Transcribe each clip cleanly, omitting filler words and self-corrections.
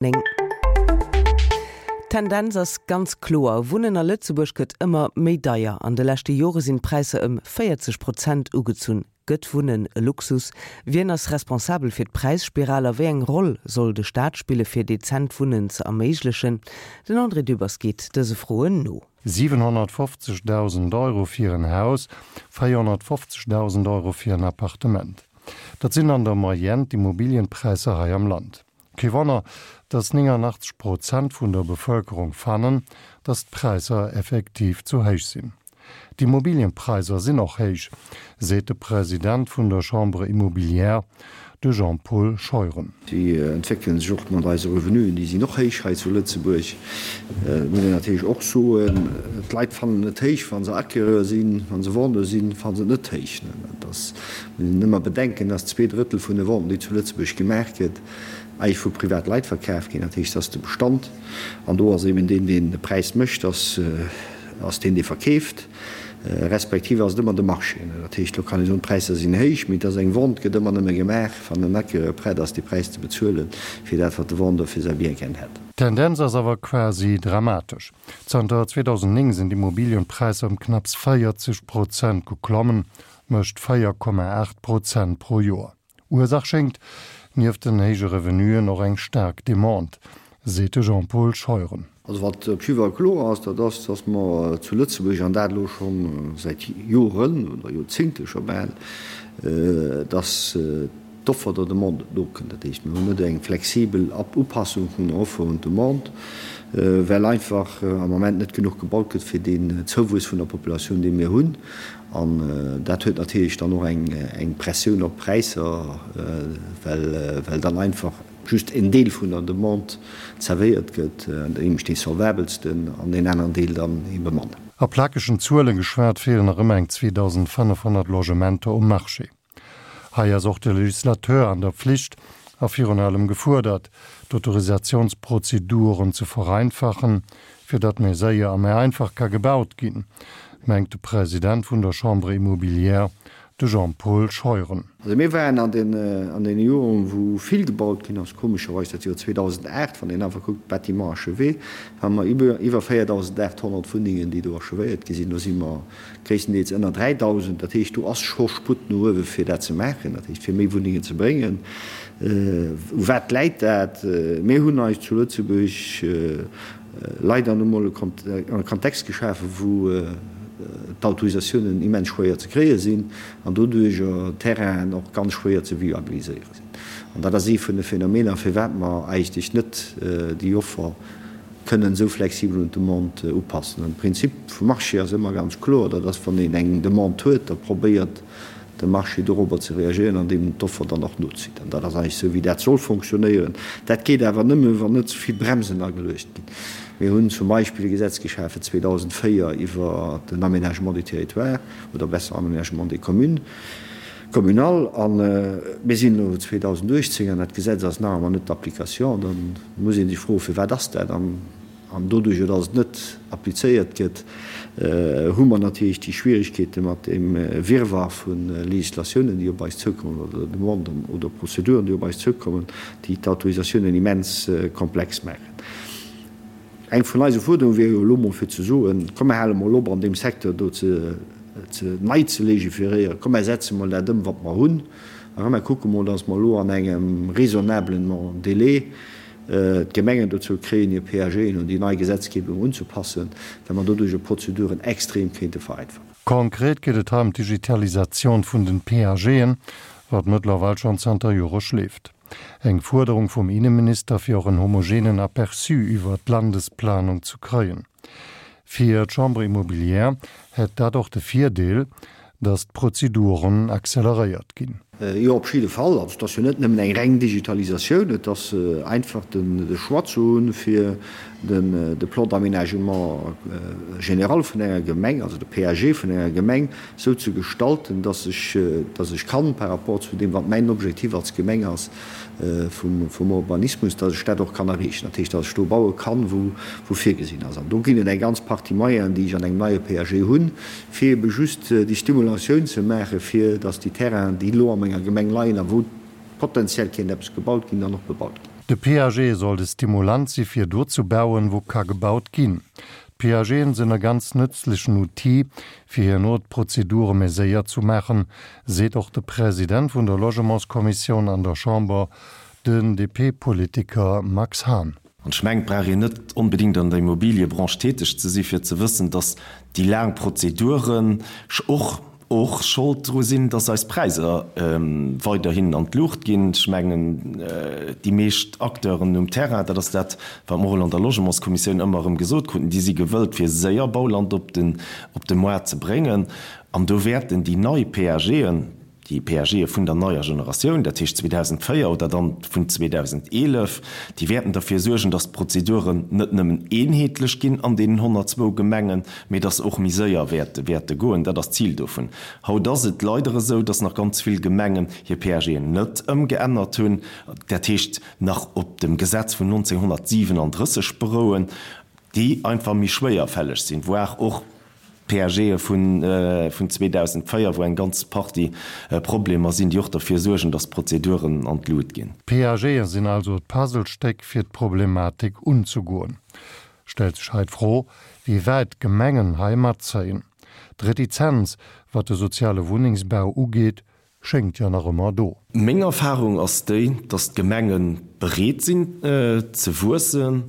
9. D'Tendenz ass ganz kloer, Wunnen a Lëtzebuerg gëtt ëmmer méi deier. An de leschte Jore sinn d'Präisser ëm 40 Prozent ugezunn. Gëtt Wunnen e Luxus? Wien ass responsabel fir d'Präisspiral a wéi eng Roll soll de Staat spille fir dezent Wunnen ze erméiglechen? Den André Dübbers geet dëse Froen no. 750.000 Euro fir en Haus, 450.000 Euro fir en Appartement. Dat sinn an der Moyenne d'Immobilienpräisser hei am Land. Kee Wonner, dass 89 Prozent vun der Bevëlkerung fannen, dass d'Präisser effektiv zu héich sinn. D'Immobilienpräisser sinn och héich, seet de President vun der Chambre immobilière, de Jean-Paul Scheuren. Déi entwéckele sech och mat eise Revenuen, déi sinn och héich hei zu Lëtzebuerg. Et muss een natierlech och soen, d'Leit fannen et héich, wa se Acquéreur sinn, wa se Vendeur sinn, fanne se et net héich. Dat ass Muss een ëmmer bedenken, dass 2/3 vun de Venten, déi zu Lëtzebuerg gemaach gëtt, eigentlech vu privat Leit verkaf ginn. Dat heescht, dass de Bestand, an do ass eben deen, deen de Präis mécht, ass ass deen, dee verkeeft, respektiv ass et ëmmer de Marché. Dat heescht, elo kann ee soen, d'Präisser sinn héich, mee et ass eng Vente gëtt ëmmer nëmme gemaach, wann en Acquéreur prett ass, dee Präis ze bezuelen, fir dat, wat de Vendeur fir säi Bien gär hätt. D'Tendenz ass awer quasi dramatesch. Zanter 2009 sinn d'Immobilienpräisser ëm knapps 40 Prozent geklommen, mécht 4,8 Prozent pro Joer. Ursaach schéngt, nieft den héije Revenuen, och eng staark Demande, seet de Jean-Paul Scheuren. Also wat op jidde Fall kloer ass, dat ass, datt mer zu Lëtzebuerg, an dat elo scho säit Joren oder Joerzéngte scho bal, datt d'Offer der Demande net nokënnt. Dat heescht, mir hunn net eng flexibel Upassung vun der Offer un d'Demande, well einfach am Moment net genuch gebaut gëtt fir deen Zouwuess vun der Populatioun, dee mir hunn. An dat huet natierlech dann och eng Pressioun op d'Präisser, well dann einfach just en Deel vun der Demande zerwéiert gëtt, nämlech dee solvabelsten, an deen aneren Deel dann ebe manner. A plakegen Zuele geschwat feelen nach ëmmer eng 2.500 Logementer um Marché. Hei ass och de Legislateur an der Pflicht a virun allem gefuerdert, d'Autorisationsprozeduren ze vereinfachen, fir datt méi séier a méi einfach ka gebaut ginn, mengt de President vun der Chambre immobilière, de Jean-Paul Scheuren. Also mir waren an deene Joren, wou vill gebaut ginn ass, komescherweis dat Joer 2008, wann een einfach kuckt, Bâtiments achevés, hate mer iwwer 4.800 Wunnengen, déi do achevéiert gi sinn. Do si mer Gréisstendeels ënner 3.000. Dat heescht, do ass scho Sputt no uewe fir dat ze maachen, dat heescht fir méi Wunnengen ze bréngen. U wat läit dat? Mir hunn eis zu Lëtzebuerg leider nu mol e Kontext geschafen, wou d'Autorisatiounen immens schwéier ze kréie sinn an doduerjer d'Terrainen och ganz schwéier ze viabiliséiere sinn. An dat ass ee vun de Phänomener, firwat mer eigentlech net déi Offer kënnen esou flexibel un d'Demande upassen. An de Prinzip vum Marché ass ëmmer ganz kloer, dat ass, wann een eng Demande huet, da probéiert de Marché dorobber ze reagéieren, andeem en d'Offer dann och nozitt. An dat ass eigentlech esou, wéi dat soll fonctionnéieren. Dat geet awer nëmme, wann net ze vill Bremsen ageluecht ginn. Mir hunn zum Beispill e Gesetz geschafen 2004 iwwer den Aménagement du territoire, oder besser Aménagement des communes, communal, a mir sinn elo 2018 an dat Gesetz ass nach ëmmer net d'application. Da muss ee sech froen, Firwat ass dat? An doduerjer, datt et net applizéiert gëtt, hu mer natierlech déi Schwierigkeete mat deem Wirrwarr vu Législatiounen, déi op eis zoukommen, oder Demanden oder Prozeduren, déi op eis zoukommen, déi d'Autorisatiounen immens komplex maachen. Eng vun eise Fuerderunge wier jo elo mol fir ze soen, Komm mer hale mol op an deem Secteur do ze nei ze légiféréieren, komm mer setze mol dat ëm wat mer hunn a komm mer kucke mol, datt mer elo an engem raisonnablen Délai d'Gemengen dozou kréien, hir PAGen un déi nei Gesetzgebung unzepassen, well mer doduerch Prozeduren extrem kéinte vereinfachen. Konkret geet et hei ëm d'Digitalisatioun vun den PAGen, wat mëttlerweil schonn zanter Jore schleeft. Eng Fuerderung vum Inneminister, fir och en homogenen Aperçu iwwer d'Landesplanung ze kréien. Fir d'Chambre immobilière hätt dat och de Virdeel, datt d'Prozeduren acceleréiert ginn. Jo, op jidde Fall. Also et ass jo net nëmmen eng reng Digitalisatioun, et ass einfach de Choix ze hunn, fir de Plan d'aménagement général vun enger Gemeng, also de PAG vun enger Gemeng, esou ze gestalten, dass ech, dass ech kann par rapport zu deem, wat mäin Objektiv als Gemeng ass vum, vum Urbanismus, dass ech dat och kann erreechen. Dat heescht, dass ech do baue kann, wou, wou virgesinn ass. An do ginn et eng ganz Partie Moyenen, déi ech an engem neie PAG hunn, fir ebe just déi Stimulatioun ze maachen, fir dass déi Terrainen, déi elo a menger Gemeng leien a wou potenziell kéint eppes gebaut ginn, dann och bebaut ginn. De PAG soll de Stimulant si fir do ze bauen, wou ka gebaut ginn. D'PAGen sinn e ganz nëtzlechen Outil, fir herno d'Prozedure méi séier zu maachen, seet och de President vun der Logementskommissioun an der Chamber, den DP-Politiker Max Hahn. An ech mengen, et brauch een net onbedéngt an der Immobiliëbranche täteg ze si fir ze wëssen, datt déi laang Prozeduren och och Schold dru sinn, datt eis Präisser weiderhin an d'Luucht ginn. Ech mengen, déi meescht Acteuren um Terrain, dat ass dat, wat mer och an der Logementskommissioun ëmmer erëm gesot kruten, déi si gewëllt, fir séier Bauland op de Moart ze bréngen. An do wäerten déi nei PAGen, Déi PAGe vun der neier Generatioun, dat heescht 2004 oder dann vun 2011, déi wäerten derfir suergen, datt d'Prozeduren net nëmmen eenheetlech ginn an deenen 102 Gemengen, mee datt se och méi séier wäerte goen. Dat ass d'Zil dovun. Haut ass et leider esou, datt nach ganz vill Gemengen hir PAGen net ëmgeännert hunn, dat heescht nach op dem Gesetz vun 1937 berouen, déi einfach méi schwéierfälleg sinn, voire och PAGe vun 2004, wou eng ganz Partie Problemer sinn, déi och derfir suergen, datt d'Prozeduren an d'Lut ginn. D'PAGe sinn also d'Puzzlestéck fir d'Problematik unzegoen. Stellt sech hei d'Fro, wéi wäit d'Gemengen hei matzéien. D'Retizenz, wat de soziale Wunnengsbau ugeet, schéngt jo nach ëmmer do. Meng Erfahrung ass déi, dass d'Gemenge bereet sinn ze wuessen,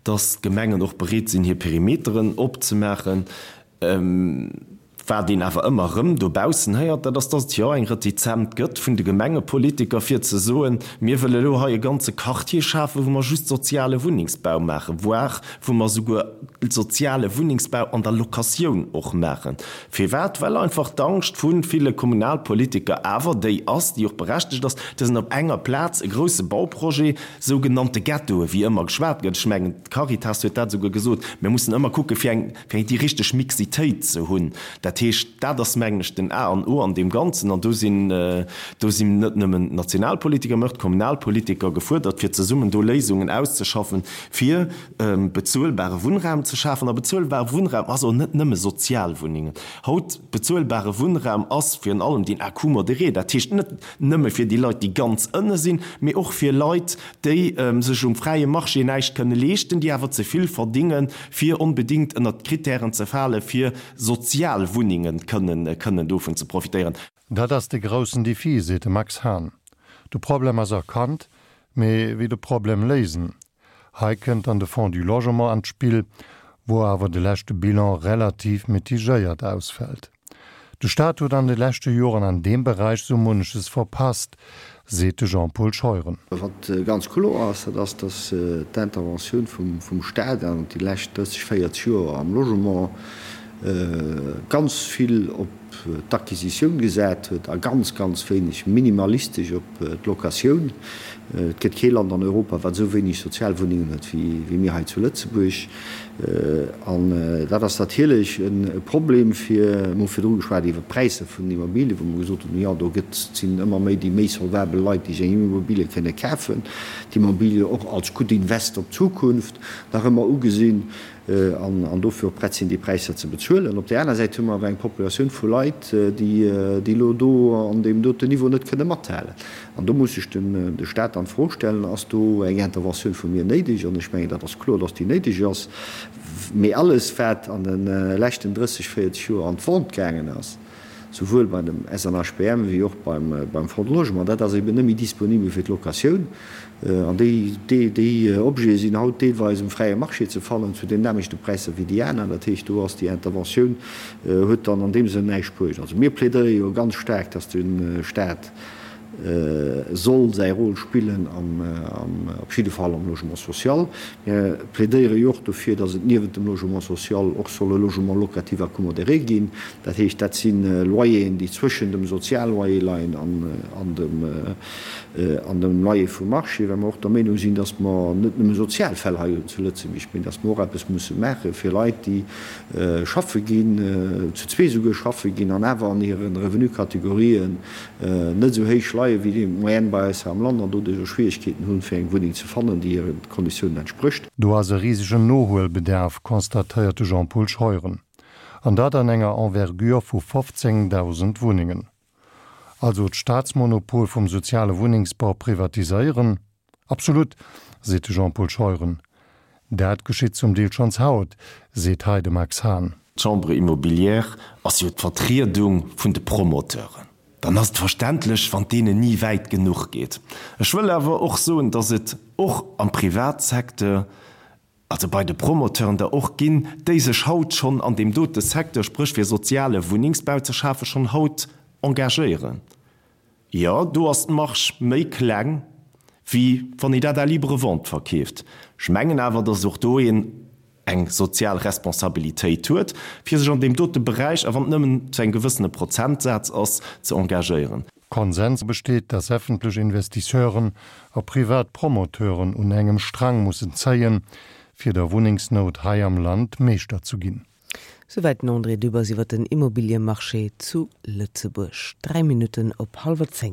dass d'Gemengen och bereet sinn hir Perimeteren opzemaachen. Wat een awer ëmmer erëm dobaussen héiert, dat ass, dass et jo eng Retizent gëtt vun de Gemengepolitiker fir ze soen, mir wëlle elo hei e ganze Quartier schafen, wou mer just soziale Wunnengsbau maachen, voire wou mer esouguer soziale Wunnengsbau an der Locatioun och maachen. Firwat? Well einfach d'Angscht vu ville Kommunalpolitiker awer déi ass, déi och berechtegt ass, dass en op enger Plaz e grousse Bauprojet, sougenannte Ghettoe wéi ëmmer geschwat gëtt, ech mengen d'Caritas huet dat esouguer gesot, mir mussen ëmmer kucke fir eng, fir déi richteg Mixitéit ze hunn. Dat heescht, dat ass mengen ech den A an O an deem Ganzen an do sinn, do sinn net nëmmen d'Nationalpolitiker, mä och d'Kommunalpolitiker gefuerdert, fir zesummen do Léisungen auszeschaffen, fir bezuelbare Wunnraum ze schafen. A bezuelbare Wunnraum ass och net nëmme Sozialwunnengen. Haut, bezuelbare Wunnraum ass virun allem deen à coût modéré, dat heescht net nëmme fir déi Leit, déi ganz ënne sinn, mee och fir Leit, déi sech um fräie Marché näischt kënne leeschten, déi awer ze vill verdingen, fir onbedéngt ënnert d'Kritären ze falen, fir Sozialwunnengen kënnen dovun ze profitéieren. Dat ass de groussen Defi, seet de Max Hahn. De Problem ass erkannt, mee wéi de Problem léisen? Hei kënnt dann de Fonds du Logement an d'Spill, wou awer de leschte Bilan relativ mitigéiert ausfält. De Staat huet an de leschte Joren an deem Beräich sou munneches verpasst, seet de Jean-Paul Scheuren. Wat ganz kloer ass, dat ass, datt d'Interventioun vum Staat an déi lescht 30, 40 Joer am Logement ganz vill op d'Acquisitioun gesat huet a ganz, ganz wéineg, minimalistesch op d'Locatioun. Et gëtt kee Land an Europa, wat esou wéineg Sozialwunnengen huet wéi mir hei zu Lëtzebuerg. An dat ass natierlech e Problem fir, mir hu virdru geschwat iwwert d'Präisser vun den Immobilien, wou mer gesot hunn, jo do gëtt, sinn ëmmer méi déi méi solvabel Leit, déi sech eng Immobilie kënne kafen, d'Immobilie och als gutt Invest op d'Zukunft nach ëmmer ugesinn. An dofir och prett sinn, déi Präisser ze bezuelen. Op där aner Säit hu mer awer eng Populatioun vu Leit, déi elo do an deem doten Niveau net kënne mathalen. An do muss sech de Stat dann d'Fro stellen, Ass do eng Interventioun vu mir néideg? An ech mengen, dat ass kloer, dass déi néideg ass. Mee alles, wat an de leschten 30, 40 Joer an d'Vente gaangen ass, souwuel bei dem SNHBM wéi och beim Fonds de Logement, dat ass eben net méi disponibel fir d'Locatioun. An déi, déi Objete sinn haut deelweis um fräie Marché ze fannen, zu den nämmlechte Präisser wéi déi aner. Dat heescht, do ass déi Interventioun, huet dann an deem Sënn näischt bruecht. Also mir plädéiere jo ganz staark, dass de Stat soll säi Rôle spillen am, op jidde Fall am Logement social. Mir plädéiere jo och dofir, dass et niewent dem Logement social och soll e Logement locatif à coût modéré ginn. Dat heescht, dat si Loyeren, déi zwëschen dem Sozialloyer leien an dem, an dem Loyer vum Marché, well mer och der Meenung sinn, dass mer net nëmme sozial Fäll hei hunn zu Lëtzebuerg, mee dass mer och eppes musse maache fir Leit, déi schaffe ginn, zu zwee souguer schaffe ginn an awer an hire Revenukategorien net esou héich leie wéi déi Moyenne bei eis hei am Land an doduerch och Schwierigkeeten hunn, fir eng Wunneng ze fannen, déi hire Konditiounen entsprécht. Do ass e risegen Nohuelbedarf, constatéiert de Jean-Paul Scheuren. An dat an enger Envergure vu 15.000 Wunnengen. Also d'Staatsmonopol vum soziale Wunnengsbau privatiséieren? Absolut! Seet de Jean-Paul Scheuren. Dat geschitt zum Deel schonns haut, seet hei de Max Hahn. D'Chambre immobilière ass jo d'Vertriedung vun de Promoteuren. Dann ass et verständlech, wann et deenen ni wäit genuch geet. Ech wëll awer och soen, datt et och am Privatsecteur, also bei de Promoteuren der och ginn, déi sech haut schonn an deem dote Secteur, spréch fir soziale Wunnengsbau ze schafen, schonn haut engagéieren. Jo, do ass d'Marge méi kleng, wéi wann een dat à libre vente verkeeft. Ech mengen awer, datt och do een eng sozial Responsabilitéit huet, fir sech an deem dote Beräich, a wann et nëmmen zu engem gewëssene Prozentsaz ass, ze engagéieren. Konsens besteet, datt effentlech Investisseuren a privat Promoteuren un engem Strang mussen zéien, fir der Wunnengsnout hei am Land Meeschter zu ginn. Souwäit den André Dübbers iwwer den Immobiliemarché zu Lëtzebuerg. 3 Minutten op hallwer 10.